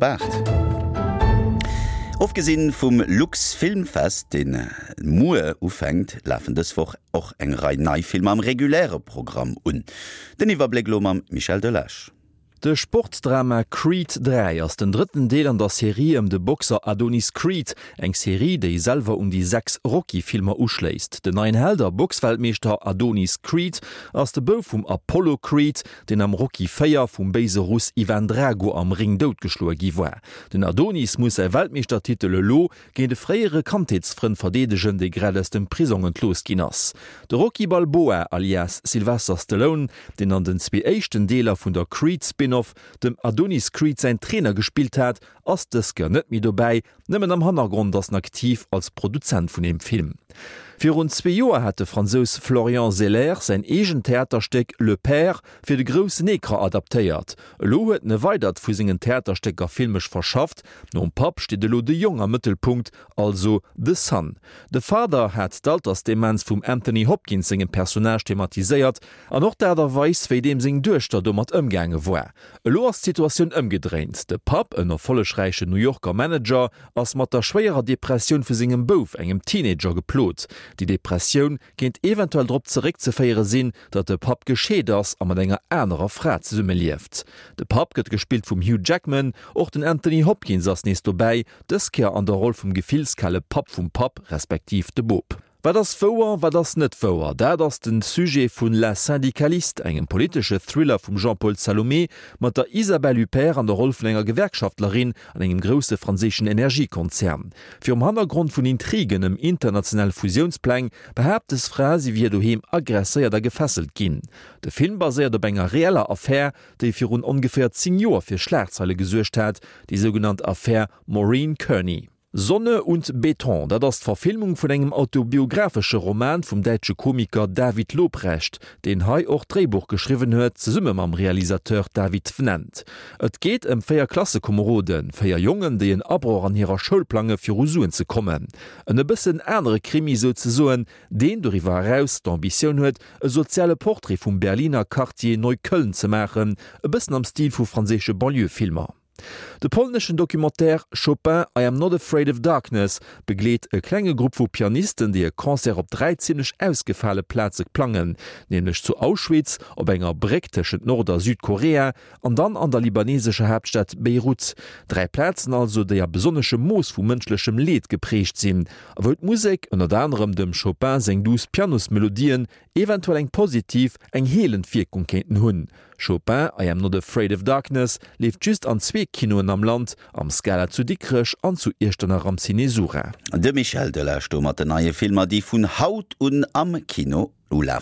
op 8. Ofgesinn vum Luxfilmfest, deen muer ufänkt, lafen dës Woch och eng Rei nei Filmer am reguläre Programm un. Den Iwwerbléck elo mam Michel Delage. De Sportdrama Creed 3 ass den drëtten Deel an der Serie ëm de Boxer Adonis Creed, eng Serie, déi selwer un déi 6 Rocky-Filmer uschléisst. Den neien Held a Boxweltmeeschter Adonis Creed ass de Bouf vum Apollo Creed, deen am Rocky 4 vum béise Russ Ivan Drago am Ring doutgeschloe gi war. Den Adonis muss säi Weltmeeschtertitel elo géint e fréiere Kandheetsfrënd verdeedegen, dee grad aus dem Prisong entlooss ginn ass. De Rocky Balboa alias Sylvester Stallone, deen an den zwee éischten Deeler vun der Creed-Spin-Off dem Adonis Creed säin Trainer gespillt hat, ass dës Kéier net méi dobäi, nëmmen am Hannergrond ass en aktiv als Produzent vun deem Film. Virun zwee Joer hat de Fransous Florian Zeller säin eegent Theaterstéck Le Père fir de groussen Ecran adaptéiert. Elo huet en e weidert vu sengen Theaterstécker filmesch verschafft, Nom Papp steet elo de Jong am Mëttelpunkt, also The Son. The Father hat d'Altersdemenz vum Anthony Hopkins sengem Personnage thematiséiert an och d'Aart a Weis, wéi deem seng Duechter domat ëmgaange war. Elo ass d'Situatioun ëmgedréint, De Papp, en erfollegräichen New Yorker Manager, ass mat der schwéierer Depressioun vu sengem Bouf, engem Teenager, geplot. Déi Depressioun kéint eventuell drop zeréckzeféiere sinn, datt de Papp gescheet ass a mat enger anerer Fra zesummelieft. De Papp gëtt gespillt vum Hugh Jackman, och den Anthony Hopkins ass nees dobäi, dës Kéier an der Roll vum gefillskale Papp vum Papp, respektiv de Bop. Wat ass wouer, wat ass net wouer? Dat ass de Sujet vun La Syndicaliste, engem politesche Thriller vum Jean-Paul Salomé mat der Isabelle Huppert an der Roll vun enger Gewerkschaftlerin an engem grousse franséischen Energiekonzern. Virum Hannergrond vun Intrigen ëm international Fusiounspläng behaapt des Fra, si wier doheem aggresséiert a gefesselt ginn. De Film baséiert op enger reeller Affär, déi virun ongeféier 10 Joer fir Schlagzeile gesuergt hat, déi sougenannt Affär Maureen Kearney. Sonne und Beton, dat ass d'Verfilmung vun engem autobiographesche Roman vum däitsche Komiker David Lobrecht, deen hei och d'Dréibuch geschriwwen huet, zesumme mam Realisateur David Vnent. Et geet ëm 4 Klassekomeroden, 4 Jongen, déi en Abroch an hirer Schoul plange fir u Suen ze kommen. En e bëssen anere Krimi souzesoen, deen doriwwer eraus d'Ambitioun huet, e soziale Portrait vum Berliner Quartier Neukölln ze maachen, e bëssen am Stil vu franséische Banlieue-Filmer. De polneschen Documentaire Chopin, I Am Not Afraid of Darkness begleet e klenge Grupp vu Pianisten, déi e Concert op 3 zimmlech ausgefale Plaze plangen, nämlech zu Auschwitz, op enger Bréck tëschent Nord a Südkorea An dann an der libanesescher Haaptstad Beirut. 3 Plazen also, déi a besonneschem Mooss vu mënschlechem Leed geprägt sinn, a wou d'Musek, ënnert anerem dem Chopin seng duuss Pianosmelodien, eventuell eng positiv, eng heelend Wierkung kéinten hunn. Chopin, I Am Not Afraid of Darkness leeft just an zwee Kinoen am Land, am Scala zu Dikrech an zu Iechternach am Ciné Sura. De Michel Delage do mat den neie Filmer, déi vun haut un am Kino ulafen.